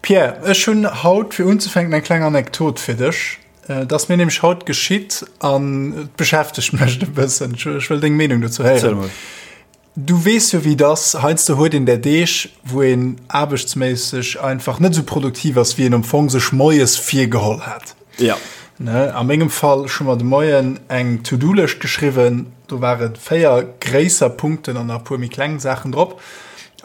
Pierre, ech hunn haut fir unzefänken eng kleng Anekdot fir dech. Et ass mir nämlech haut geschitt an et beschäftegt mech e bëssen. Ech wëll deng Meenung dozou héieren. Du weess jo wéi et ass, heiansdo huet een där Deeg, wou een aarbechtsméisseg einfach net esou produktiv ass, wéi een am Fong sech moies virgeholl hat. Ja. Ne, a mengem Fall, ech hu mer de Moien eng To-Do-Lëscht geschriwwen, do ware 4 gréisser Punkten an nach e puer méi kleng Saachen drop.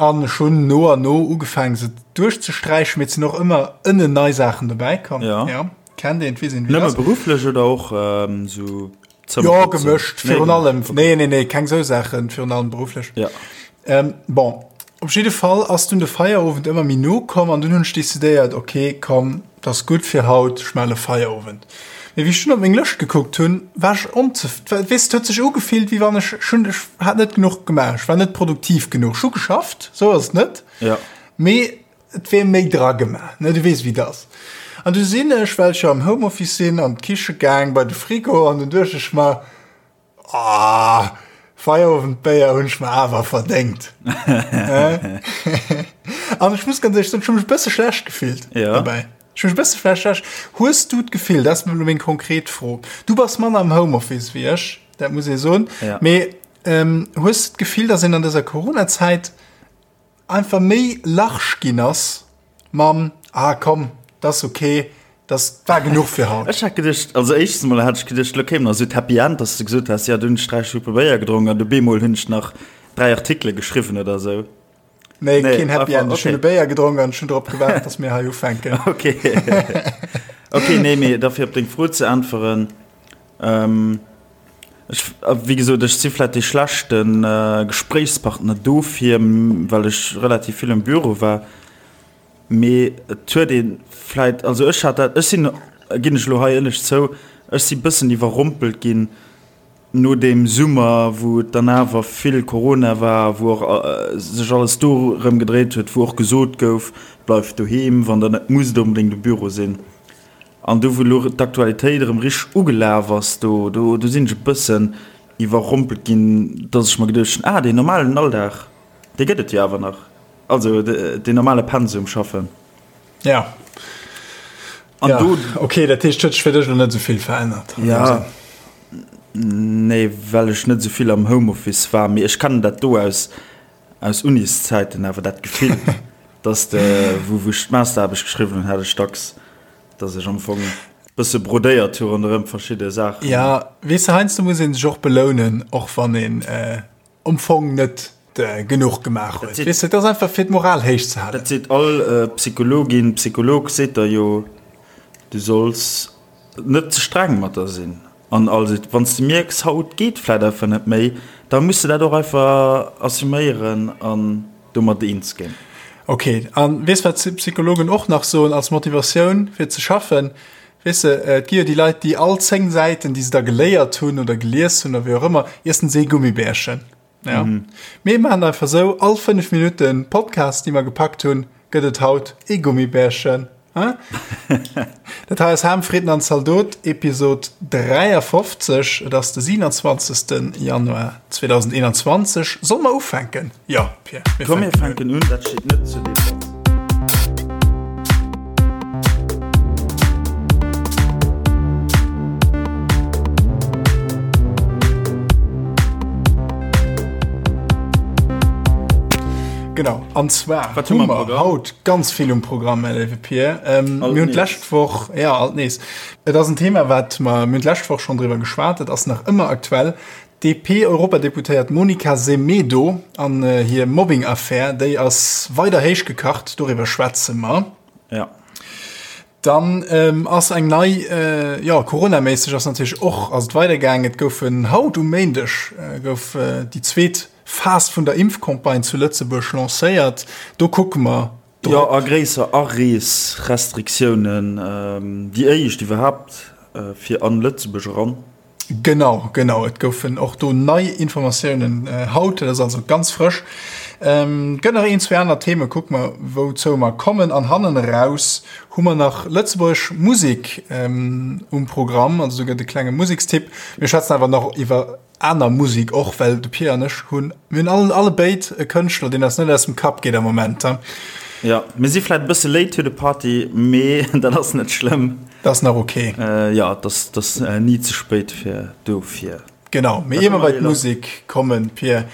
An ech hunn no an no ugefaangen, se duerchzesträichen, mee et sinn och ëmmer ënnen nei Saachen dobäi komm. Ja. Ja, kennt een, weess een, wéi et ass. Nëmme berufflech oder och esou Zëmmer ja, gemëscht, virun nee, allem. Okay. Nee, nee, nee, keng sou Saachen, virun allem berufflech. Ja. Ähm, bon, op jidde Fall ass dunn de Feierowend ëmmer méi no komm an dunn hunn ech decidéiert, okay, komm, dat ass gutt fir haut, ech melle Feierowend. Mee wéi ech dunn op meng Lëscht gekuckt hunn, war ech onzef weess, et huet sech ugefillt, wéi wann ech schon ech hat net genuch gemaach, ech war net produktiv genuch. Ech hu geschafft, sou ass et net. Ja. Mee Et wier méi dra gemaach, ne, du weess wéi et ass. An du sinn ech, well ech jo am Homeoffice sinn, an d'Kiche gaang bei de Frigo an dunn duecht ech mer, Ah, Feierowendbéier hunn ech mer awer verdéngt. An ech muss ganz éierlech soen, ech hu mech e bësse schlecht gefillt dobäi. Ech hu mech e bësse schlecht. Hues du d'Gefill, dat ass elo meng konkret Fro, du bass manner am Homeoffice wéi ech, dat muss ee soen, mee hues du d'Gefill, datt een an dëser Coronazäit einfach méi large ginn ass mam ah komm, dat ass ok, dat war genuch fir haut. Ech hat geduecht, also éischtens mol hat ech geduecht, lo kéim nach esou d'Happy End, dass de gesot häss, jo du hunn ech 3 Schuppe Béier gedronk an du bemol hunn ech nach 3 Artikele geschriwwen oder esou. Nee, keen Happy End, ech hunn e Béier gedronk an ech hunn drop gewaart, dass mir hei ufänken. Ok, ok, nee, mee da fir op deng Fro ze äntweren, Ech, wéi gesot, ech si vläit dee schlechte Gespréichspartner dofir, well ech relativ vill am Büro war. Mee et huet ee vläit, also ech hat dat, ech sinn, ginn ech elo hei éierlech zou, ech si bëssen iwwerrompelt ginn no deem Summer, wou et dann awer vill Corona war, wou och sech alles dorëm gedréit huet, wou och gesot gouf, bleift doheem, wann der net musst onbedéngt um Büro sinn. An do wou elo d'Aktualitéit erëm richteg ugelaf ass, do do do sinn ech e bëssen iwwerrompelt ginn, dass ech mer geduecht hunn, ah deen normalen Alldag, dee gëtt et jo awer nach, also deen normale Pensum schaffen. Ja. An ja, do. Okay, dat heescht, huet sech fir dech elo net esou vill verännert? Ja, nee, well ech net esou vill am Homeoffice war, mee ech kennen dat do aus Aus Uniszäiten awer dat Gefill, dass de, wou wou ech d'Masteraarbecht geschriwwen hunn, hat ech dacks, dass ech am Fong bësse brodéiert hu ronderëm verschidde Saachen. Ja, weess de, heiansdo muss ee sech och belounen, och wann een am Fong net genuch gemaach huet. Weess de, et ass einfach fir d'Moral héich ze halen. Dat seet all Psychologin, Psycholog seet der jo, du solls net ze streng mat der sinn. An also, wann s de mierks, haut geet vläit einfach net méi, da muss de dat och einfach assuméieren an domat eens ginn. Ok, a weess wat d'Psychologen och nach soen als Motivatioun fir ze schaffen? Weess de, et gi jo déi Leit, déi all 10 Säiten, déi se da geléiert hunn oder gelies hunn oder wéi och ëmmer, iessen se ee Gummibärchen. Ja. Mhm. Mir maachen einfach sou, all 5 Minutten Podcast, déi mer gepackt hunn, gëtt et haut ee Gummibärchen. Dat hei ass Ham, Fritten an Zaldot, Episod 53. Et ass de 27. Januar 2021. Solle mer ufänken? Jo, Pierre. Mir Komm, mir fänken un. Dat steet net zur Debatt. Genau, an zwar Wat hu mer haut ganz vill um Programm, mäi léiwe Pir. Ähm, mir hunn d'lescht Woch, ja, alt nees. Et ass en Thema, wat mer, mir hunn d'lescht Woch schonn driwwer geschwat, et ass nach ëmmer aktuell. D'DP-Europadeputéiert Monica Semedo an hir Mobbing-Affär, déi ass weider héich gekacht, doriwwer schwätze mer. Ja. Dann ähm, ass eng nei, äh, ja, coronaméisseg ass natierlech och ass et weidergaangen. Et goufen haut um Méindeg äh, gouf äh, déi zweet Phas vun der Impfcampagne zu Lëtzebuerg lancéiert. Do kucke mer drop. Jo, a gréisser Areesrestriktiounen, ähm, déi éischt iwwerhaapt äh, fir an Lëtzebuerg eran. Genau, genau. Et goufen och do nei Informatiounen haut. Dat ass also ganz frësch. Et gëtt nach een, zwee aner Themen. Kucke mer, wouzou mer kommen. An hannen eraus hu mer nach lëtzebuergesch Musek um Programm. Also do gëtt e klenge Musekstipp. Mir schwätzen awer nach iwwer aner Musek och, well de Pir an ech hunn, mir hunn all, allebéid e Kënschtler, deen eis net aus dem Kapp geet am Moment. Jo, mir si vläit e bësse late to the party, mee dat ass net schlëmm. Dat ass nach ok. Jo, et ass, et ass ni ze spéit fir dofir. Genau, mee ier mer bei d'Musek kommen, Pir,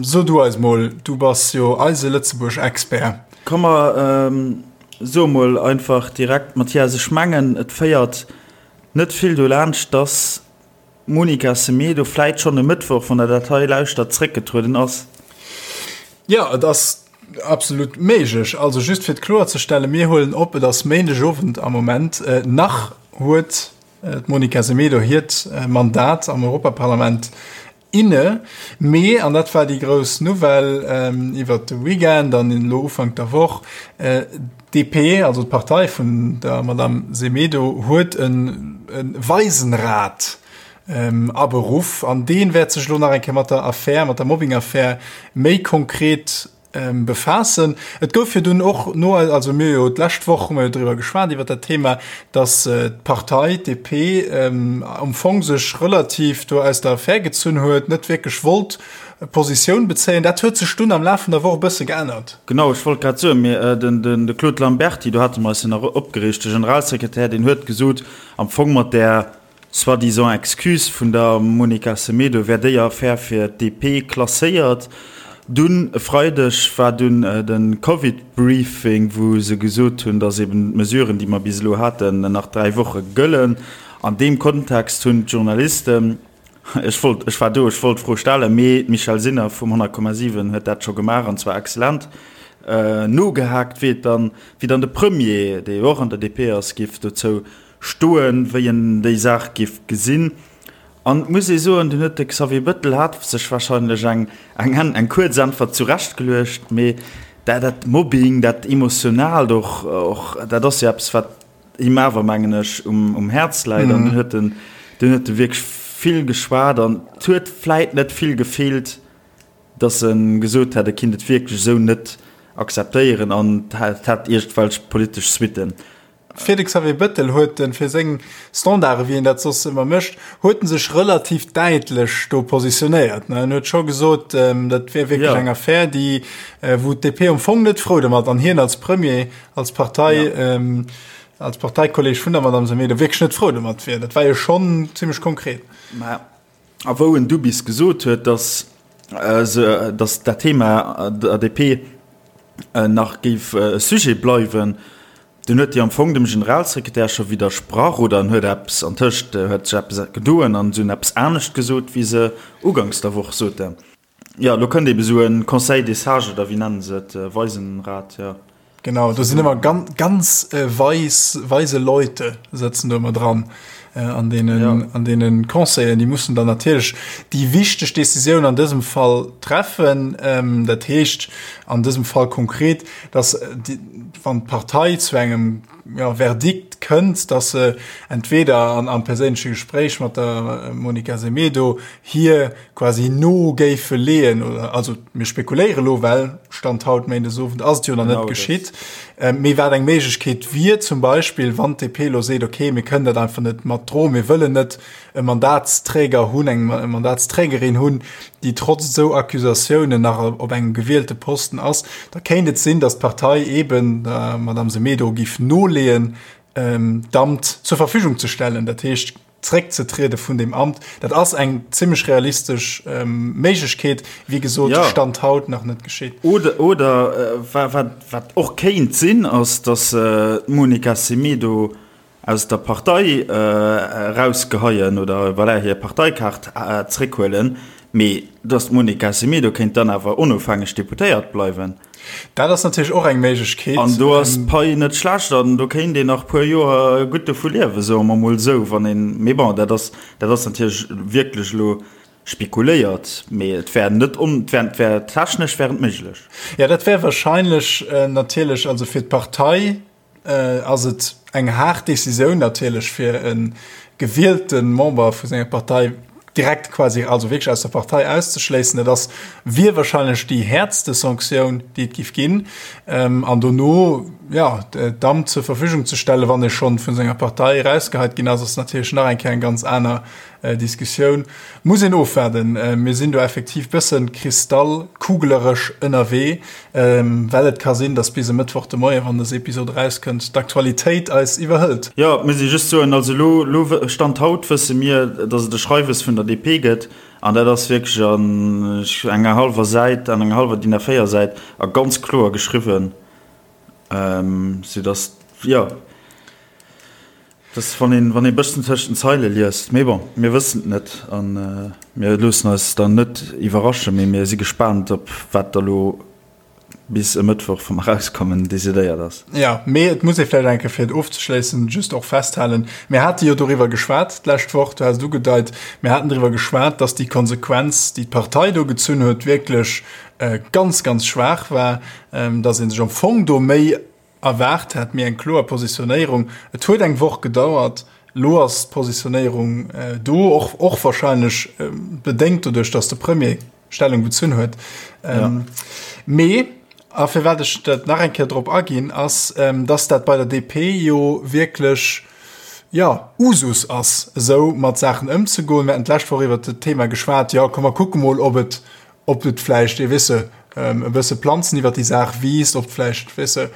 so du eis mol, du bass jo eise Lëtzebuerg-Expert. Komm mer soe mol einfach direkt, Mathias, ech mengen et féiert net vill dolaanscht, dass d'Monica Semedo vläit schonn e Mëttwoch, wann der dat hei lauschtert, zréckgetrueden ass. Jo, et ass absolut méiglech. Also just fir et kloerzestellen, mir huelen op, et ass Méindegowend am Moment. Nach huet d'Monica Semedo hiert Mandat am Europaparlament inne, mee, an dat war déi grouss Nouvelle iwwert de Weekend an elo Ufank der Woch, d'DP, also d'Partei vun der Madame Semedo, huet e Waisenrat aberuff an dee wäert sech elo nach eng Kéier mat der Affär, mat der Mobbing-Affär méi konkret Befaassen. Et gouf jo dunn och no, also mir jo d'lescht Woch hu mer jo driwwer geschwat iwwer dat Thema, datt d'Partei, d'DP, am Fong sech relativ do aus der Affär gezunn huet, net wierklech wollt Positioun bezéien. Dat huet sech dunn am Laf vun der Woch e bësse geännert. Genau, ech wollt grad soen, mir, den de Claude Lamberty, do hate mer eis jo nach opgereegt, de Generalsekretär, deen huet gesot, am Fong mat där, Soi-disant Excuse vun der Monica Semedo wär déi Affär fir d'DP klasséiert. Dunn e Freideg war dunn de Covid-Briefing, wou se gesot hunn, datt eben d'Mesuren, déi mer bis elo haten, nach 3 Woche gëllen. An deem Kontext hunn d'Journalisten, ech wollt, ech war do, ech wollt d'Fro stellen, mee d'Michèle Sinner vum 100,7 huet dat scho gemaach, an zwar excellent, nogehaakt, wéi et dann, wéi dann de Premier, dee jo och an der DP ass, géif dozou Stoen, wéi en déi Saach giff gesinn. An et muss ee soen, dunn huet de Xavier Bëttel hat sech wahrscheinlech eng eng eng kuerz Äntwert zurechtgeluecht, mee dat dat Mobbing, dat Emotionaalt och och, dat ass jo eppes, wat him awer, mengen ech, um um Häerz läit. An dunn huet en dunn huet e wierklech vill geschwat an et huet vläit net vill gefeelt, dass e gesot hätt, e kinnt et wierklech esou net akzeptéieren an et hätt iergendwelch politesch Suitten. Fir de Xavier Bëttel huet en, fir seng Standarde wéi en dat soss ëmmer mécht, huet en sech relativ däitlech do positionéiert. En huet scho gesot, dat wier wierklech eng Affär, déi, wou d'DP am Fong net frou domat an hien als Premier, als Partei, als Parteikolleg vun der Madame Semedo wierklech net frou domat wier. Dat war jo schonn zimmlech konkret. Mä a wou en du bis gesot huet, datt se, datt dat Thema der DP nach géif e Sujet bleiwen, Dunn huet déi am Fong dem Generalsekretär scho widdersprach oder en huet eppes, antëscht huet sech eppes gedoen an se hunn eppes anescht gesot, wéi se uganks der Woch soten. Jo, elo kënnt ebe sou e Conseil des sages oder wéi nennen se et, Weisenrat, jo. Genau, do sinn ëmmer ganz weis, weise Leute sëtzen do ëmmer dran an deenen, an deene Conseillen. Déi mussen dann natierlech déi wichteg Decisioun an dësem Fall treffen. Dat heescht an dësem Fall konkret, dass wann d'Partei zu engem ja, Verdikt kënnt, dass se entweder an, am perséinleche Gespréich mat der Monica Semedo hir quasi no géife leeën, oder also mir spekuléiere lo, well Stand haut Méindesowend ass et jo nach net geschitt, mee wat eng Méiglechkeet wier zum Beispill, wann d'DP lo seet, okay, mir kënnen dat einfach net mat droen, mir wëllen net e Mandatsträger hunn, eng Mandatsträgerin hunn, déi trotz esou Accusatiounen nach op engem gewielte Posten ass, da kéint et sinn, datt d'Partei eeben der Madame Semedo géif noleeën, d'Amt zur Verfügung ze stellen, dat heescht zréckzetriede vun deem Amt. Dat ass eng zimmlech realistesch Méiglechkeet, wéi gesot, Stand haut nach net geschitt. Oder, oder wat och kéint sinn, ass, datt d'Monica Semedo aus der Partei erausgeheien oder voilà, hir Parteikaart zréckhuelen, mee datt d'Monica Semedo kéint dann awer onofhängeg Deputéiert bleiwen. Dat ass natierlech och eng Méiglechkeet. An do ass d'Pai net schlecht an do kéint een nach puer Joer gutt dovu liewen, soe mer mol esou, wann een, mee bon, dat ass, dat ass natierlech wierklech elo spekuléiert, mee et wär net on, et wär, et wär technesch wär et méiglech. Jo, dat wär wahrscheinlech natierlech, also fir d'Partei ass et eng haart Decisioun natierlech fir e gewielte Member vu senger Partei direkt quasi, also wierklech aus der Partei auszeschléissen. Dat ass, wier wahrscheinlech déi häertste Sanktioun, déi et giff ginn. An dono, jo, d'Amt zur Verfügung ze stellen, wann ee schonn vun senger Partei erausgeheit ginn ass, ass natierlech nach eng Kéier eng ganz aner Diskussioun. Muss een ofwaarden. Mir sinn do effektiv bëssen kristallkugeleresch ënnerwee, well et ka sinn, datt bis e Mëttwoch de Moien, wann dës Episod erauskënnt, d'Aktualitéit eis iwwerhëlt. Jo, et muss ee just soen, also elo, elo Stand haut wësse mir, datt et e Schreiwes vun der DP gëtt, an dat ass wierklech an enger hallwer Säit, an enger hallwer DIN A4 Säit a ganz kloer geschriwwen, soudatt, jo. Dass wann een, wann ee bëssen tëscht den Zeile liest, mee bon, mir wëssen et net a mir loossen eis dann net iwwerraschen, mee mir si gespaant op wat da lo bis e Mëttwoch, wa mer erauskommen, decidéiert ass. Jo, mee et muss ee vläicht eng Kéier, fir et ofzeschléissen, just och festhalen, Mir hate jo doriwwer geschwat d'lescht Woch, du has et ugedeit, mir haten driwwer geschwat, dass déi Konsequenz, déi d'Partei do gezunn huet, wierklech ganz, ganz schwaach war, dass ee sech am Fong do méi Erwaart hätt, mee eng kloer Positionéierung. Et huet eng Woch gedauert, elo ass d'Positionéierung do, och och wahrscheinlech bedéngt doduerch, datt de Premier Stellung bezunn huet. Mee, a firwat ech dat nach eng Kéier drop aginn, ass, datt dat bei der DP jo wierklech, jo, Usus ass, esou mat Saachen ëmzegoen. Mir haten d'lescht Woch iwwert dat Thema geschwat, jo, komm mer kucke mol, ob et ob et vläicht, weess de, e bësse Planzen iwwer déi Saach wiisst, ob vläicht, weess de,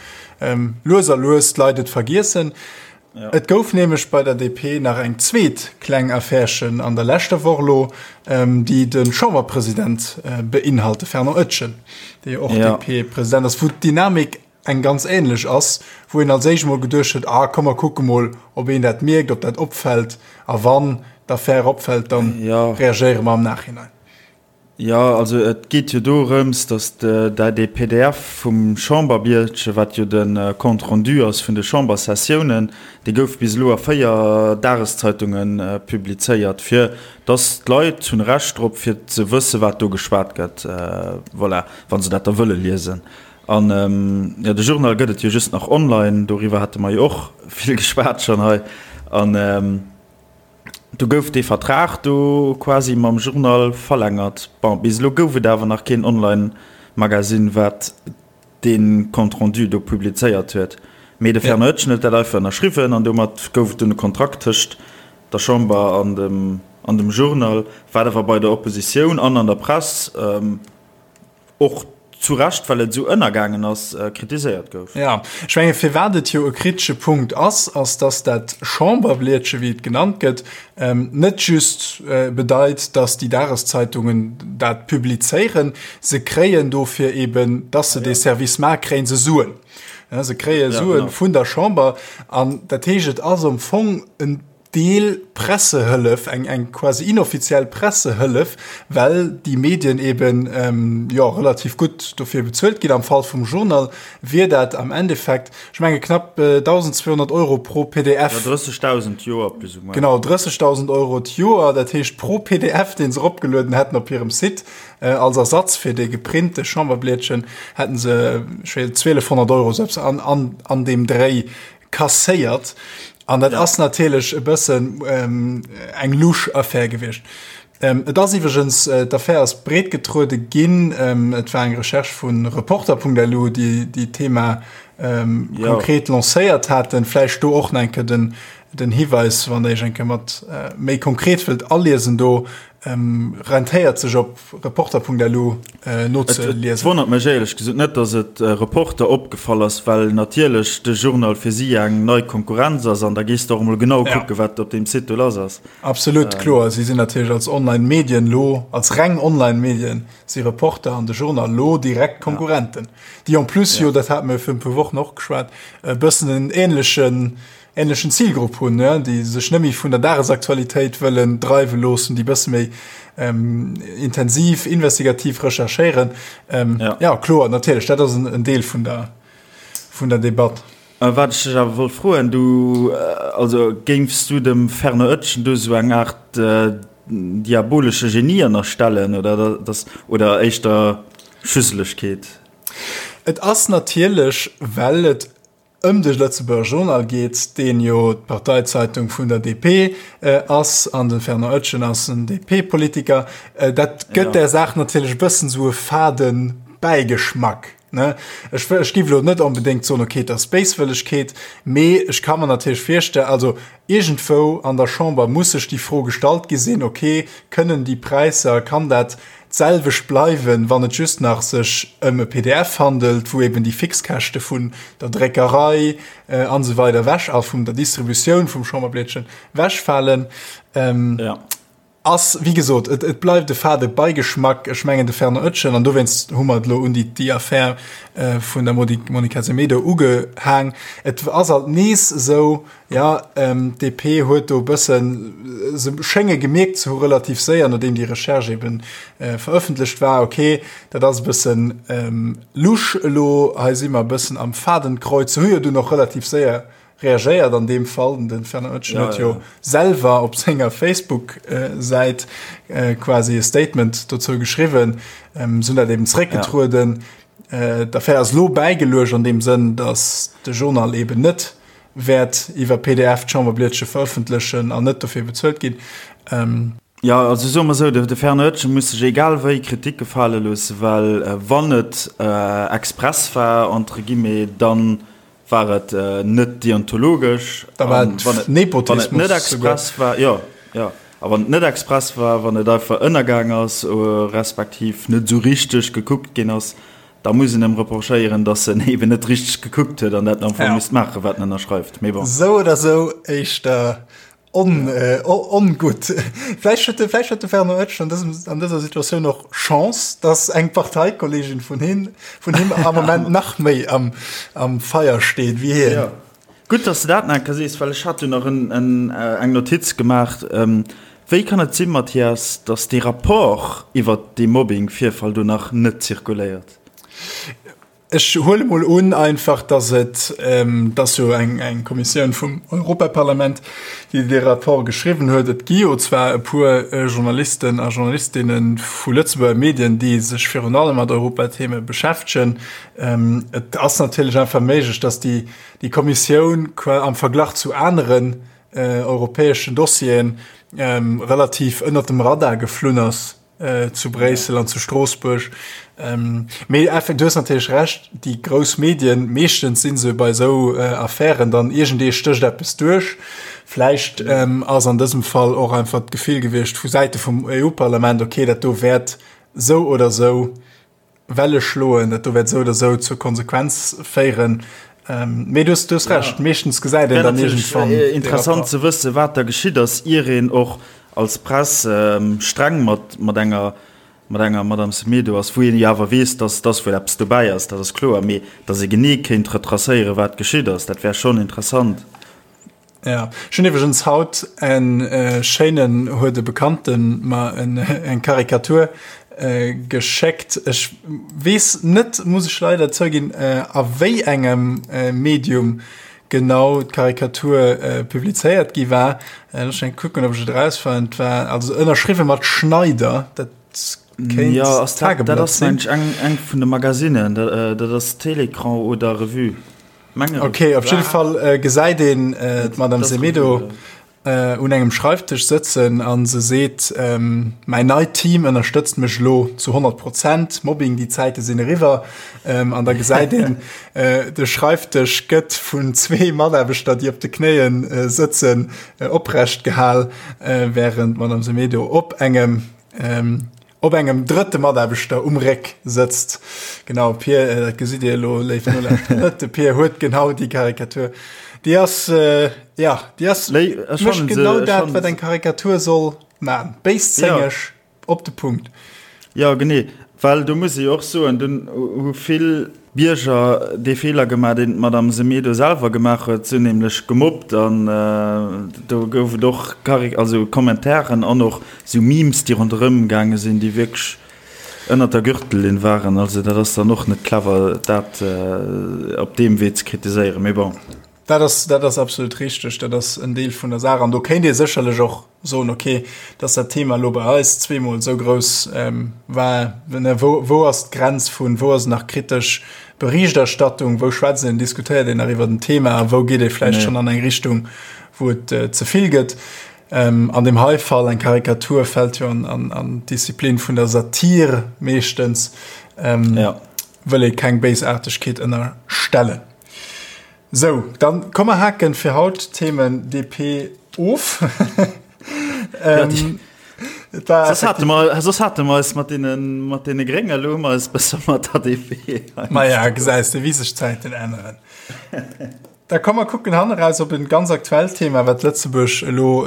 lues a lues d'Leit et vergiessen. Ja. Et gouf nämlech bei der DP nach eng zweet kleng Affärchen an der leschter Woch elo, déi de Chamberpresident beinhalt, de Fernand Etgen, dee jo och ja. DP-President ass, wou d'Dynamik eng ganz änlech ass, wou een als éischt mol geduecht huet, ah komm mer kucke mol, ob een dat mierkt, ob dat opfält, a wann d'Affär opfält, dann ja. reagéiere mer am Nachhinein. Jo, also et geet jo dorëms, datt dee pdf vum Chamberbiertche, wat jo de Compte rendu ass vun de Chambersessiounen, dee gouf bis elo a 4 Dageszeitunge publizéiert, fir datt d'Leit hunn e Recht drop, fir ze wësse wat do geschwat gëtt, voilà, wa se dat da wëlle liesen. An jo, de Journal gëtt et jo just nach online, doriwwer hate mer jo och vill geschwat schonn hei. An. Do gouf dee Vertrag do quasi mam Journal verlängert. Bon, bis elo gouf et awer nach keen Online-Magasinn, wat dee Compte rendu do publizéiert huet. Mee de Fernand Etgen huet dat einfach ënnerschriwwen an domat gouf et dunn e Kontrakt tëscht der Chamber an dem, an dem Journal, wat awer bei der Oppositioun an an der Press, Och zu Recht, well et esou ënnergaangen ass, kritiséiert gouf. Jo, ech menge firwat et jo e kritesche Punkt ass, ass datt dat Chamberblietche, wéi et genannt gëtt, net just bedeit, datt déi Dageszeitungen dat publizéieren. Se kréien dofir eben, datt se dee Service maachen, kréie se Suen. Se kréie Sue vun der Chamber. An dat heescht, et ass am Fong en Deel Pressehëllef, eng eng quasi inoffiziell Pressehëllef, well déi Medien eben jo relativ gutt dofir bezuelt ginn. Am Fall vum Journal wier dat am Endeffekt, ech menge knapp 1.200 Euro pro pdf. Jo, 30.000 d'Joer plus ou moins. Genau, 30.000 Euro d'Joer, dat heescht pro pdf, dee se eropgelueden hätten op hirem Site, als Ersatz fir dee geprinte Chamberblietchen, hätten se, ech weess, 1.200 Euro, esou eppes an an an deem Dréi kasséiert. An dat ja. ass natierlech e bëssen ähm, eng lusch Affär gewiescht. Ähm, et ass iwwergens äh, d'Affär ass breet getruede ginn. Ähm, et war eng Recherche vun Reporter.lu, déi déi Thema ähm, ja. konkret lancéiert haten. Vläicht do och enke den, den Hiweis, wann der Iech enke mat äh, méi konkret wëllt aliesen do, ähm, rentéiert sech op Reporter.lu äh, nozeliesen. Et wonnert mech éierlech gesot net, datt et äh, Reporter opgefall ass, well natierlech de Journal fir si eng nei Konkurrenz ass an da gees de och emol genau ja. kucke wat op deem Site do lass ass. Absolut ähm. kloer, si sinn natierlech als Online-Medien lo, als reng Online-Medien si Reporter an de Journal lo direkt Konkurrenten. Ja. Déi en plus ja. jo, dat hat mir fir e puer Wochen och geschwat, e bëssen en ähnlechen ähnlechen Zilgrupp hunn, déi sech net méi vun der Dagesaktualitéit wëllen dreiwe loossen, déi bësse méi ähm, intensiv, investigativ recherchéieren. Ähm, ja. ja kloer, natierlech, dat ass en, en Deel vun der, vun der Debatt. Äh, wat ech dech awer wollt froen, du, äh, also géifs du dem Fernand Oetjen do sou eng Aart äh, diabolesche Genie ënnerstellen oder, das, oder éischter Schüsselegkeet? Et ass natierlech, well et ëm de Lëtzebuerger Journal geet, deen jo d'Parteizeitung vun der DP ass, an de Fernand Oetjen ass en DP-Politiker, dat gëtt der Saach natierlech e bëssen esou e fade Bäigeschmack. Ne? Ech, ech giff elo net onbedéngt soen, okay, et ass Béiswëllegkeet, mee ech ka mer natierlech virstellen, also iergendwou an der Chamber muss sech déi Fro gestallt gi sinn, okay, kënnen déi Präisser, kann dat d'selwecht bleiwen, wann et just nach sech ëm e PDF handelt, wou eben déi Fixkäschte vun der Dréckerei an esou weider ewech a vun der Distributioun vum Chamberblietchen ewechfalen. Ja. Ass, wéi gesot, et, et bleift e fade Beigeschmack. Ech mengen, de Fernand Oetjen, an dowéinst hu mer et elo un déi, déi Affär vun der Monica Semedo ugehaang, et ass alt nees esou, jo, d'DP huet do e bëssen, se schénge gemierkt ze hu relativ séier, nodeem déi Recherche ebe verëffentlecht war, okay, dat ass e bëssen lusch elo, hei si mer e bëssen am Fadenkreuz. Se hu jo dunn och relativ séier reagéiert an deem Fall. Den Fernand Oetjen huet jo selwer op senger Facebook-Säit quasi e Statement dozou geschriwwen. Se hunn dat eben zeréckgetrueden. D'Affär ass elo bäigeluecht an deem Sënn, datt de Journal eben net wäert iwwer PDF d'Chamberblietche verëffentlechen an net dofir bezuelt ginn. Jo, also soe mer esou, de Fernand Oetjen muss sech egal wéi Kritik gefale loossen, well wann et express war, entre guillemets, dann War et net deontologesch? Da war et Nepotismus. Wann et net express war, jo, jo. A wann et net express war, wann et einfach ënnergaang ass, respektiv net esou richteg gekuckt ginn ass, da muss een em reprochéieren, datt en eben net richteg gekuckt huet an dat en am Fong misst maachen, wat en ënnerschreift. Mee bon. Esou oder esou éischter On, äh, ongutt. Vläicht huet de, vläicht huet de Fernand Oetsch an dësem, an dëser Situatioun och Chance, dass eng Parteikollegin vun him, vun him am Moment nach méi am, am Feier steet wéi hien. Ja. Gutt, dass de dat nach eng Kéier sees, well ech hat jo nach en, en, eng Notiz gemaach. Wéi kann et sinn, Mathias, dass dee Rapport iwwert dee Mobbing-Virfall do nach net zirkuléiert? Ech huele mol un einfach, datt et, et ass jo eng eng Kommissioun vum Europaparlament, déi dee Rapport geschriwwen huet. Et gi jo zwar e puer Journalisten a Journalistinne vu Lëtzebuerger Medien, déi sech virun allem mat Europatheme beschäftegen. Et ass natierlech einfach méiglech, datt déi déi Kommissioun am Verglach zu aneren europäeschen Dossieren relativ ënnert dem Radar geflunn ass. zu Bréissel an zu Stroossbuerg. Mee effekt, du hues natierlech Recht, déi grouss Medien, meeschtens si se bei esou Affären dann iergendee stécht eppes duerch. Vläicht ass an dësem Fall och einfach d'Gefill gewiescht vu Säite vum EU-Parlament, okay, dat do wäert esou oder esou Welle schloen, dat do wäert esou oder esou zur Konsequenz féieren. Mee du hues, du hues Recht, meeschtens gesäit een dann iergendwann dee Rapport. Interessant ze wëssen, wat da geschitt ass, ier een och als Press streng mat, mat enger, mat enger Madame Semedo ass, wou een jo awer weess, dass, dass wuel eppes dobäi ass, dat ass kloer, mee dass ee genee kéint retracéieren, wat geschitt ass, dat wär schonn interessant. Ja, ech hunn iwwregens haut en schéinen, huet e Bekannten mer en eng Karikatur geschéckt. Ech weess net, muss ech leider zouginn, a wéi engem Medium genau d'Karikatur publizéiert gi war. Looss mech eng kucken, ob ech et erausfannen. Et war also ënnerschriwwe mat Schneider, dat kéint Jo, ass dat, dat ass mensch eng eng vun de Magazinen, dat ass Télécran oder Revue. Okay, op jidde Fall äh, gesäit een äh, d'Madame Semedo äh, un engem Schreiftisch sëtzen an se seet, ähm, mäin neit Team ënnerstëtzt mech lo zu 100 Prozent, Mobbing, déi Zäite sinn eriwwer. Ähm, an da gesäit een, äh, de Schreiftisch gëtt vun zwee Mataarbechter, déi op de Knéien äh, sëtzen, äh, oprecht gehal, äh, während d'Madame Semedo op engem ähm, Op engem drëtte Mataarbechter um Réck sëtzt. Genau, Pier, äh, dat gesitt Dir elo, léif Nolauschterer, net. De Pier huet genau déi Karikatur. Déi ass, äh, ja, déi ass, Léi, ech mécht fannen se, genau ech dat, fannen wat se. eng Karikatur soll man. Béiszéngeg, op de Punkt. Jo, genee. Well do muss ee jo och soen, dunn hu vill Bierger dee Feeler gemaach, deen d'Madame Semedo selwer gemaach huet. Se hunn nämlech gemobbt an do gouf et och Karik-, also Kommentaren an och esou Memes, déi ronderëm gaange sinn, déi wierklech ënnert der Gürtellinn waren. Also dat ass dann och net clever, dat op deem Wee ze kritiséieren. Mee bon. Dat ass, dat ass absolut richteg. Dat ass en Deel vun der Saach. An do kéint ee sécherlech och soen, okay, dass dat Thema elo bei eis zweemol esou grouss war, ne, wou, wou ass d'Grenz vun, wou ass nach kritesch Berichterstattung, wou schwätzt een, diskutéiert een nach iwwer den Thema a wou geet ee vläicht schonn an eng Richtung, wou et ze vill gëtt. An deem hei Fall, eng Karikatur fält jo an, an, an d'Disziplin vun der Satir meeschtens. Ja. Wëll ee keng Béisaartegkeet ënnerstellen. Sou, dann komm mer haken fir haut d'Themen DP of. ähm, soss hate mer, soss hate mer eis mat deene, mat deene Grénge, elo hu mer eis besser mat der DP. Maja, gesäis de, wéi sech d'Zäiten änneren. Da komm mer kucken hanneraus op en ganz aktuellt Thema, wat Lëtzebuerg elo,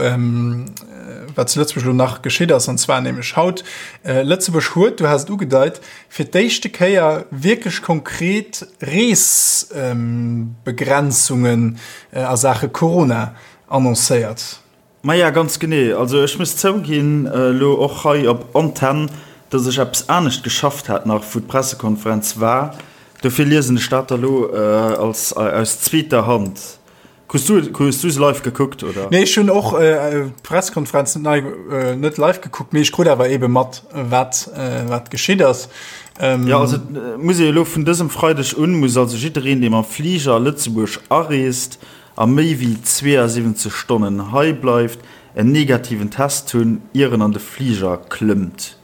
wat zu Lëtzebuerg elo nach geschitt ass, an zwar nämlech haut. Lëtzebuerg huet, du has et ugedeit, fir d'éischte Kéier wierklech konkret Reesbegrenzungen a Saache Corona annoncéiert. Maja, ganz genee. Also ech muss zouginn, elo och hei op Antenn, dass ech eppes anescht geschafft hat nach, wou d'Pressekonferenz war. Dofir liesen ech dat da lo als aus zweeter Hand. Hues du, hues du se live gekuckt, oder? Nee, ech hunn och d'Pressekonferenz net nei, net live gekuckt, mee ech krut awer eebe mat, wat, wat geschitt ass. Jo, also muss ee elo vun dësem Freideg un, muss also jiddereen, dee mam Fliger a Lëtzebuerg areest, a méi wéi 72 Stonnen hei bleift, en negativen Test hunn, ier en an de Fliger klëmmt.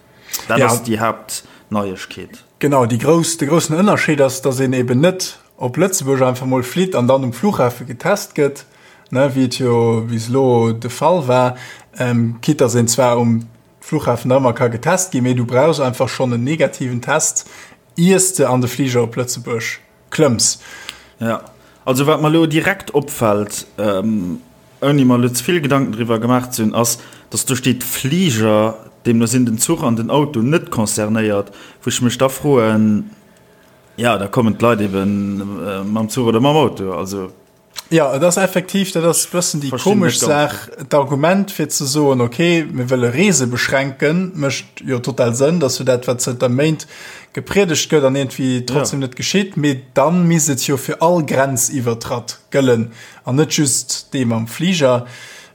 Dat ass déi Haaptneiegkeet. Genau, déi grouss, de groussen Ënnerscheed ass, datt een eben net op Lëtzebuerg einfach mol flitt an dann um Flughafe getest gëtt, ne, wéi et jo bis elo de Fall war, quitte datt een zwar um Flughafen nach ëmmer ka getest ginn, mee du brauchs einfach schonn en negativen Test, iers de an de Fliger op Lëtzebuerg klëmms. Ja, also wat mer elo direkt opfält, ouni mer elo ze vill Gedanken driwwer gemaach ze hunn, ass, dass do steet Fliger, deemno sinn den Zuch an den Auto net concernéiert, wou ech mech da froen, ja, da kommen d'Leit ebe mam Zuch oder mam Auto, also. Jo, et ass effektiv, dat ass e bëssen déi komesch Saach, d'Argument fir ze soen, ok, mir wëlle Reese beschränken, mécht jo total Sënn, dat ass jo dat, wat zënter Méint gepriedegt gëtt an iergendwéi trotzdem net geschitt, mee da misst et jo fir all Grenziwwertratt gëllen an net just dee mam Fliger.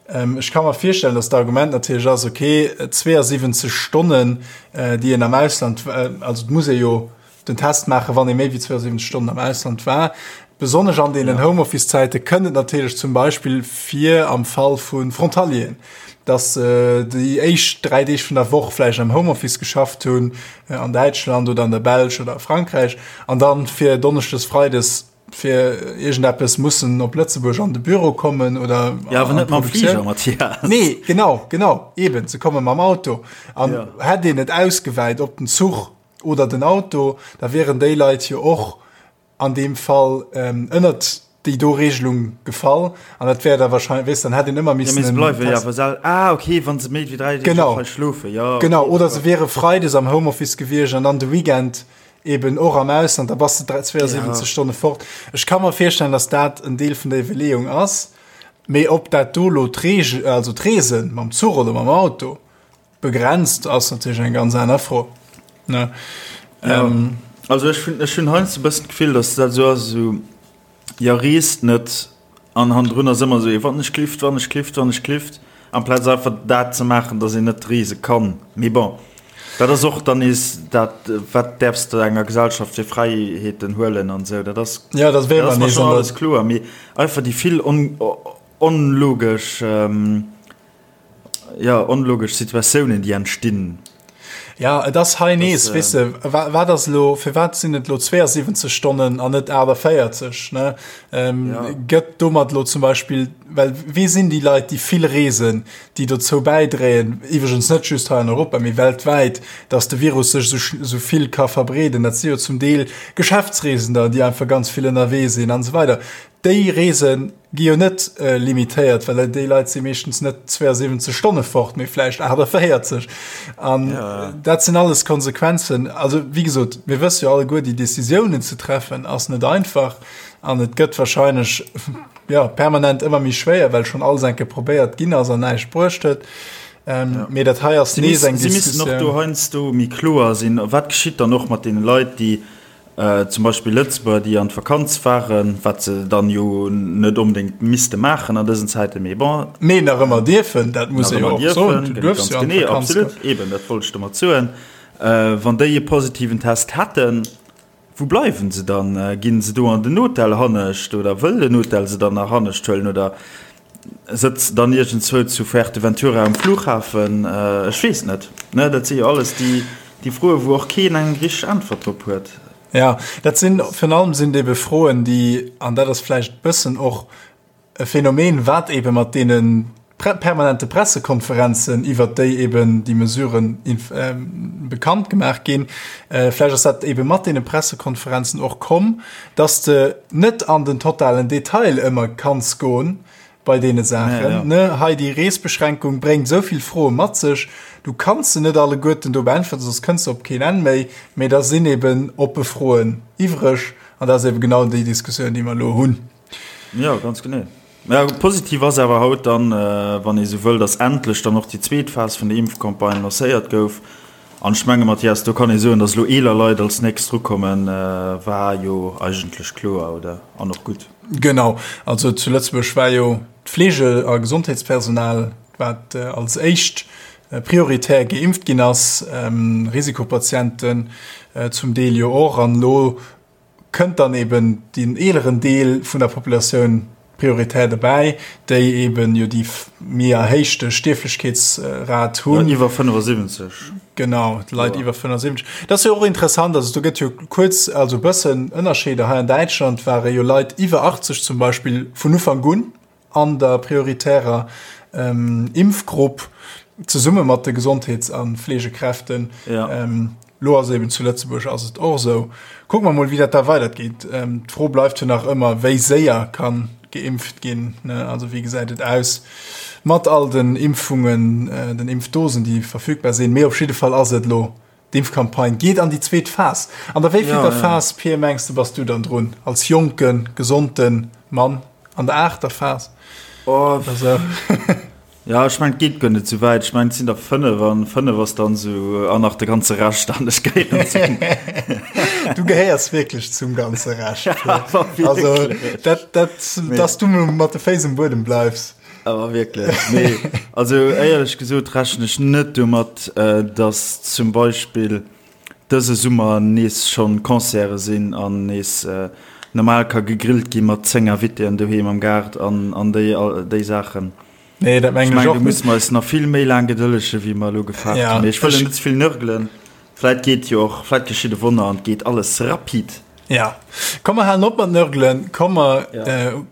Ech ka mer virstellen, datt d'Argument natierlech ass, ok, 72 Stonnen, déi een am Ausland, also et muss ee jo den Test maachen, wann ee méi wéi 72 Stonnen am Ausland war. Besonnesch an deenen Homeoffice-Zäite kënnt et natierlech zum Beispill vir am Fall vu Frontalieren, dass se déi éischt 3 Deeg vun der Woch vläicht am Homeoffice geschafft hunn, an Däitschland oder an der Belsch oder a Frankräich, an dann fir Donneschdes, Freides fir iergendeppes mussen op Lëtzebuerg an de Büro kommen oder Ja, awer net mam Fliger, Mathias. Nee, genau, genau, eben, se komme mam Auto. An hätt een et ausgewäit op den Zuch, oder den Auto, da wieren déi Leit jo och an deem Fall ënnert déi do Regelung gefall an dat wär da wahrscheinlech, weess, dann hätt een ëmmer missen. Ja, mee se bleiwe jo awer sel, ah okay, wa se méi wéi 3 Deeg och hei schlofen, jo. Genau, oder se wiere freides am Homeoffice gewiescht an dann de Weekend eben och am Ausland, da bass de 72 Stonne fort. Ech ka mer virstellen, datt dat en Deel vun der Iwwerleeung ass, mee ob dat do elo d'Reegel, also d'Reese mam Zuch oder mam Auto, Begrenzt ass natierlech eng ganz aner Fro, ne? Ja. Ähm, also ech hunn ech hunn heiansdo e bëssen d'Gefill, datt dat esou ass, esou, jo reest net an hannendrun ass ëmmer esou ee wann ech klift, wann ech klift, wann ech klift, amplaz einfach dat ze maachen, datt een net reese kann. Mee bon, dat ass och dann nees dat, wat däerfs de enger Gesellschaft fir Fräiheeten huelen an esou, dat ass, ja, dat dat ass mer schonn alles kloer, mee einfach déi vill on onlogesch, Jo, onlogesch Situatiounen, déi entstinn. Ja, et ass hei nees, weess de, wat ass elo, firwat sinn et elo 72 Stonnen an net 48, ne? Gëtt domat elo zum Beispill, well wie sinn déi Leit, déi vill reesen, déi dozou bäidréien, iwwregens net just hei an Europa, mee weltwäit, datt de Virus sech esou vill ka verbreeden? Dat si jo zum Deel Geschäftsreesender, déi einfach ganz vill ënnerwee sinn an esou weider. Déi Reese gi jo net limitéiert, well déi Leit si meeschtens net 72 Stonne fort, mee vläicht 48. An dat sinn alles Konsequenzen. Also wéi gesot, mir wësse jo alleguer, déi Decisiounen ze treffen ass net einfach an et gëtt warscheinlech, jo, permanent ëmmer méi schwéier, well schonn alles eng Kéier probéiert ginn ass an näischt bruecht huet. Mee dat hei ass nees eng Diskussioun. Si missten och do heiansdo méi kloer sinn, wat geschitt dann och mat deene Leit, déi Zum Beispill Lëtzebuerger, déi an d'Vakanz waren, wat se dann jo net onbedéngt misste maachen an dësen Zäiten, mee bon. Mee nach ëmmer dierfen, dat muss ee jo och soen. Du duerfs jo an d'Vakanz goen. Absolut, eben, dat wollt ech domat soen. Wann déi e positiven Test hätten, wou bleiwen se dann? Ginn se do an den Hotel hannescht oder wëll den Hotel se dann nach hannescht huelen oder Sëtz dann iergendzwou zu Fuerteventura um Flughafen? Ech weess net. Ne, dat si jo alles déi, déi Froen, wou och keen eng richteg Äntwert drop huet. Ja, dat sinn, virun allem sinn et ebe Froen, déi, an dat ass vläicht e bëssen och e Phänomen, wat ebe mat deene permanente Pressekonferenzen, iwwert déi eben déi Mesuren bekannt gemaach ginn, vläicht ass dat ebe mat deene Pressekonferenzen och komm, dass de net an den totalen Detail ëmmer kanns goen bei deene Saachen. Ne, hei déi Reesbeschränkung bréngt esou vill Froe mat sech, du kanns se net alleguerten do beäntwerten, soss kënns de op keen Enn méi. Mee da sinn eben oppe Froen iwwreg an dat ass eben genau déi Diskussioun, déi mer elo hunn. Jo, ganz genee. Mä positiv ass awer haut dann, wann ee sou wëll, datt endlech dann och déi zweet Phas vun der Impfcampagne lancéiert gouf. An ech menge Mathias, do kann ee soen, datt elo eeler Leit als nächst drukommen, war jo eigentlech kloer, oder? An och gutt. Genau. Also zu Lëtzebuerg war jo d'Fleege a Gesondheetspersonal, wat als éischt prioritär geimpft ginn ass, Risikopatienten zum Deel jo och. An elo kënnt dann eben deen eeleren Deel vun der Populatioun prioritär dobäi, déi eben jo déi méi erhéichte Stierflechkeetsrat hunn. Ja, iwwer 75. Genau, d'Leit iwwer 75. Dat ass jo och interessant, also do gëtt jo kuerz, also e bëssen Ënnerscheeder. Hei an Däitschland ware jo Leit iwwer 80 zum Beispill vun Ufank un an der prioritärer Impfgrupp zesumme mat de Gesondheets a Fleegekräften. Ja. Lo ass eben zu Lëtzebuerg ass et och esou. Kucke mer mol, wéi dat da weidergeet. D'Fro bleift jo nach ëmmer, wéi séier kann geimpft ginn, ne? Also wéi gesäit et aus mat all den Impfungen, den Impfdosen, déi verfügbar sinn. Mee op jidde Fall ass et elo D'Impfcampagne geet an déi zweet Phas. An der wéivillter Phas, Pir, mengs de, bass du dann drun als jonken, gesonte Mann? An der aachter Phas? Oh, oder sou? Ja, ech mengen, et geet guer net sou wäit. Ech mengen, et sinn der 5 an 5 ass dann sou, an nach de ganze Rescht an ech gehéieren zum. Du gehéiers wierklech zum ganze Rescht, Pir. Also, dat, dat, dass du mat de Féiss um Buedem bleifs. Awer wierklech, nee. Also éierlech gesot rechnen ech net domat, datt zum Beispill dëse Summer nees schonn Concerte sinn an nees normal ka gegrillt gi mat 10 Invitéen doheem am Gaart an an déi déi Saachen. Nee, dat mengen ech och net. Ech mengen, do musse mer eis nach vill méi laang gedëllege wéi mer elo gefaart hunn. Mee ech wëll net ze vill nörgelen. Vläit geet jo och, vläit geschitt e Wonner an et geet alles rapid. Ja, komm mer halen op mat nörgelen, komm mer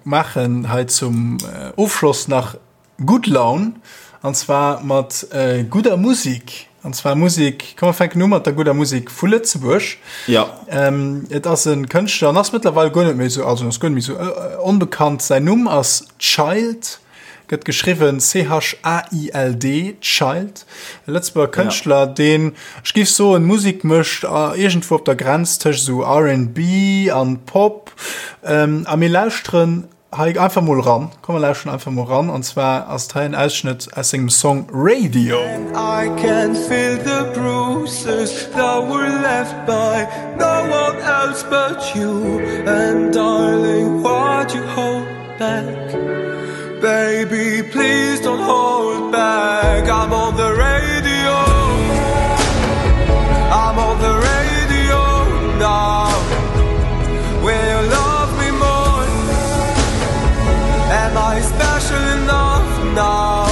maachen hei zum Ofschloss nach gutt Laun an zwar mat gudder Musik. An zwar Musik, komm mer fänken u mat der gudder Musik vu Lëtzebuerg. Ja. Et ass e Kënschtler an ass mëttlerweil guer net méi esou, also ass guer net méi esou onbekannt. Säin Numm ass Child. Gëtt geschriwwen C-H-A-I-L-D, Child, e Lëtzebuerger Kënschtler, deen, ech géif soen, Musek mécht iergendwou op der Grenz tëscht esou RnB an Pop. A mir lauschteren hei einfach mol ran. Komm mer lauschteren einfach mol ran. An zwar ass et hei en Ausschnëtt aus sengem Song Radio. I can feel the bruises that were left by no one else but you And darling, why'd you hold back Baby, please don't hold back I'm on the radio I'm on the radio now Will you love me more? Am I special enough now?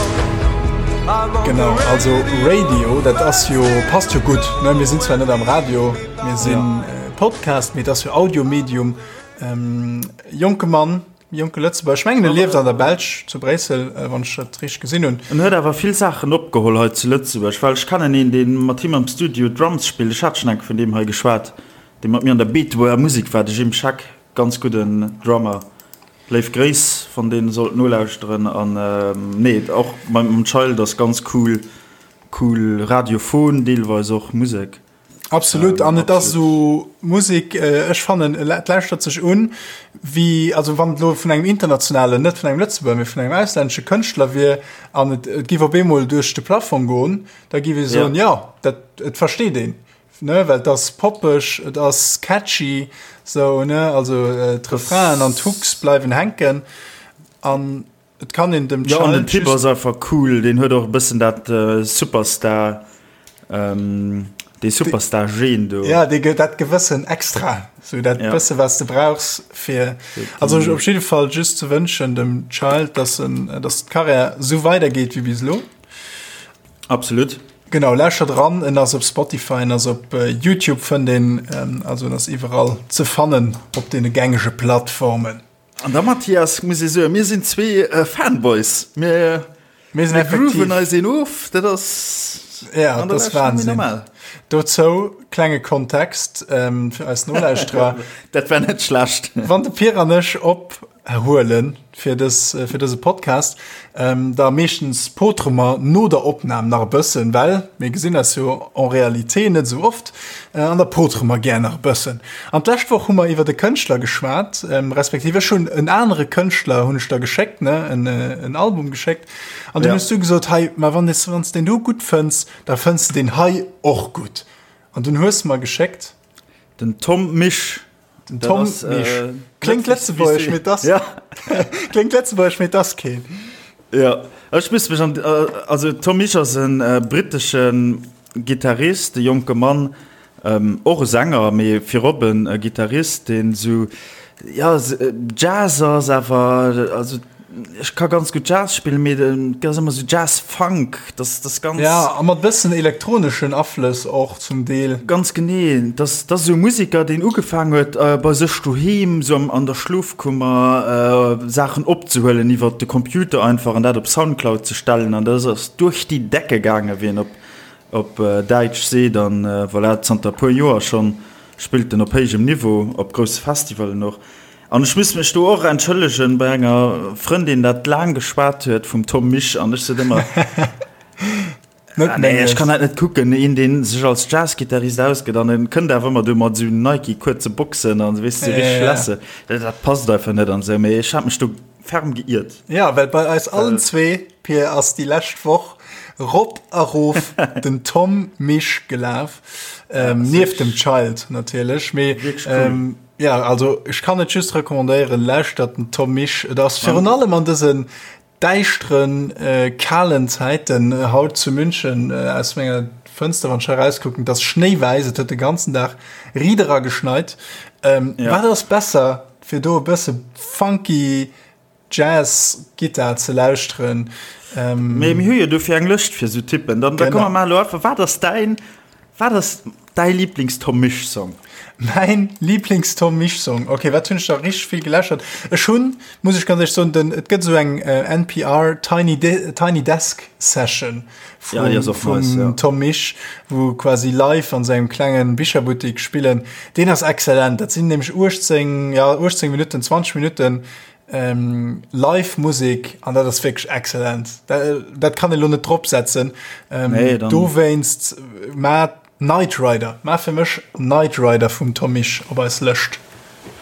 Genau, also Radio, dat ass jo, passt jo gutt, ne? Mir sinn zwar net am Radio, mir sinn Podcast, mee et ass jo Audiomedium. Jonke Mann, jonke Lëtzebuerger, ech mengen e lieft an der Belsch, zu Bréissel, wann ech dat richteg gesinn hunn. En huet awer vill Saachen opgeholl hei zu Lëtzebuerg, well ech kennen een, dee mat him am Studio Drums spillt, ech hat schonn eng Kéier vun deem hei geschwat, dee mat mir an der Beetebuerger Musek war, de Jim Scheck, ganz gudden Drummer, léif Gréiss, wann deen sollt nolauschteren. An nee, och mam Child ass ganz cool, cool radiophon deelweis och Musek. Absolut an et ass esou Musek, ech fannen et lauschtert sech un wéi, also wann et elo vun engem internationalen, net vun engem Lëtzebuerger, mee vun engem auslännesche Kënschtler wier an et et giff op eemol duerch de Plafong goen, da giff ee soen, jo dat et versteet een, ne, well et ass poppeg, et ass catchy sou, ne, also d'Refrainen an d'Hooks bleiwen hänken an Et kann een dem Ja, an den Typ ass einfach cool, deen huet och e bëssen dat Superstar, dee Superstar-Gen do. Ja, dee gëtt dat gewëssen Extra, sou dat bësse wat s de brauchs fir, also op jidde Fall just ze wënschen dem Child, dass en, dass d'Karriär sou weidergeet wéi bis elo. Absolut. Genau, lauschtert eran, en ass op Spotify, en ass op Youtube fënnt een, also en ass iwwerall ze fannen op deene gängege Plattformen. An da Mathias, muss ee soen, mir sinn zwee Fanboys, mir Mir sinn effektiv. grooven eis een of, dat ass Ja, an der dat ass Lescht net méi Wahnsinn. normal. Dozou klenge Kontext fir eis Nolauschterer. Dat war net schlecht. Wann de Pir an ech op huelen fir dës fir dëse Podcast, da meeschtens potere mer no der Opnam nach e bëssen, well mir gesinn eis jo en réalité net esou oft, an da potere mer gär nach e bëssen. An d'lescht Woch hu mer iwwert e Kënschtler geschwat, respektiv ech hunn en anere Kënschtler hunn ech der geschéckt, ne, en en Album geschéckt, an dunn hues du gesot, hei, ma wann s wann s deen do gutt fënns, da fënns de deen hei och gutt. An dunn hues de mer geschéckt. Den Tom Misch. Den Tom Misch. Kléngt lëtzebuergesch, mee 't ass kléngt lëtzebuergesch, mee 't ass keen. Jo, ech muss mech an, also Tom Misch ass e brittesche Gittarist, e jonke Mann, och e Sänger, mee virop e Gittarist, deen esou, jo, Jazz ass awer, also Ech ka ganz gutt Jazz spillen, mee et ass ëmmer sou Jazz-Funk, dat ass ganz. Ja, a mat bëssen elektroneschen Aflëss och zum Deel. Ganz genee, dat ass esou e Museker, deen ugefaang huet bei sech doheem, sou an der Schlofkummer, Saachen opzehuelen iwwer de Computer einfach an dat op Soundcloud ze stellen an dat ass duerch déi Decke gaangen, wéi een op Däitsch seet. An voilà, zanter e puer Joer schonn spillt en op héijem Niveau, op grousse Festivalen och. An ech muss mech do och entschëllegen bei enger Frëndin dat laang geschwat huet vum Tom Misch an ech sot ëmmer, Net ah, nee, ech menges. kann dat net kucken, een deen sech als Jazzgittarist ausgëtt an en kënnt awer ëmmer do mat esou Nike kuerze Boxen an weess de, richteg Ja. lässe, dat dat passt einfach net an esou, mee ech hat mech do ferm geiert. Ja, well bei eis allen zwee, Pir, ass déi lescht Woch rop a rof den Tom Misch gelaf, ähm, nieft dem Child natierlech, mee Wierklech cool. ähm, Ja, also ech kann et just recommandéieren, lauschtert den Tom Misch. Et ass virun allem an dësen däischteren, kalen Zäiten, haut zu München aus menger Fënster, wann ech hei erauskucken, et ass schnéiwäiss, et huet de ganzen Dag riit era geschneit. Wat ass besser, fir do e bësse funky Jazz-Gittar ze lauschteren. Mee mir hu jo dofir eng Lëscht fir esou Typen. Dann da komme mer elo einfach, wat ass däin, wat ass däi Lieblings-Tom Misch-Song? Mäin Lieblings-Tom Misch-Song? Okay, wat hunn ech da richteg vill geläschert? Ech hunn, muss ech ganz éierlech soen, den, et gëtt esou eng NPR Tiny Tiny Desk Session Ja, déi ass och vum nice, ja. Tom Misch, wou quasi live an sengem klengen Bicherbuttik spillen. Deen ass exzellent. Dat sinn nämlech 18, ja 18 Minutten, 20 Minutten ähm, live Musik an dat ass wierklech exzellent. Dat, dat kann ee lo net drop setzen. Ähm, Nee, dann- dowéinst ma Knight Rider, ma fir mech Knight Rider vum Tom Misch op eis Lëscht.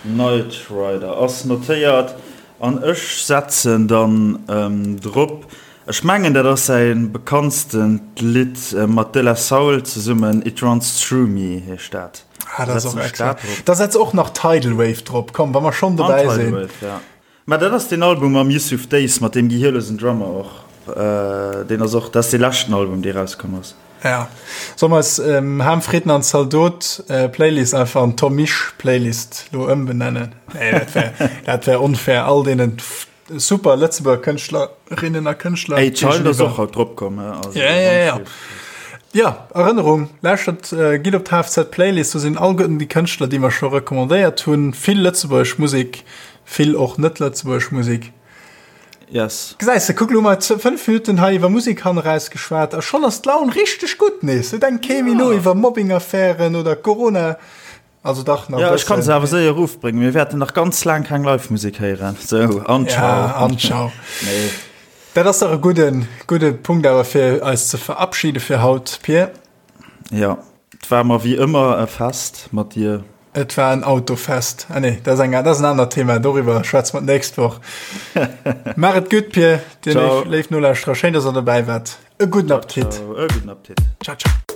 Knight Rider ass notéiert an ech setzen dann ähm, drop. Ech mengen dat ass säi bekanntstent Lidd mat De La Soul zesummen, It Runs Through Me heescht dat. Ah, dat ass och Setzen ech excellent. dat drop. Da setz och nach Tidal Wave drop, komm, wa mer schonn An dobäi Tidal sinn. Wave, ja. Mä dat ass deen Album mam Yusuf Days, mat deem gehierlosen Drummer och. Deen ass och, dat ass dee leschten Album dee rauskomm ass. Ja. Solle mer eis Ham Fritten an Zaldot Playlist einfach an Tom Misch Playlist lo ëmbenennen? Nee, dat wär, dat wär onfair all deenen Super Lëtzebuerger Kënschtlerinnen a Kënschtler. Hey, Child ass och haut drop komm. Also, ja, ja, ja. Ja, Erënnerung, lauschtert, äh, gitt op d'HFZ Playlist, do sinn all déi Kënschtler, déi mer scho recommandéiert hunn. Vill lëtzebuergesch Musek, vill och net lëtzebuergesch Musek. Yes. Gesäis de, kuck lo mol 5 Minutten hei iwwer Musek haneraus geschwat a schonn ass d'Laun richteg gutt nees. Et denkt kee méi no iwwer Mobbing-Affären oder Corona. Also dach nach Ja, ech kann se awer séier erofbréngen. Mir wäerten nach ganz laang keng Live-Musek héieren. Sou, an ciao. Ja, an ciao. Nee. Dat ass dach e gudden, gudde Punkt awer fir eis ze verabschiede fir haut, Pir. Ja, et war mer wéi ëmmer e Fest mat dir. Et war en Autofest. Ah nee, dat ass eng, dat ass en anert Thema, doriwwer schwätze mer d'nächst Woch. Maach et gutt, Pir, dir Ciao. léif, léif Nolauschterer, schéin, dass der dobäi waart. E gudden Appetit. Ciao, e gudden Appetit. Ciao, ciao.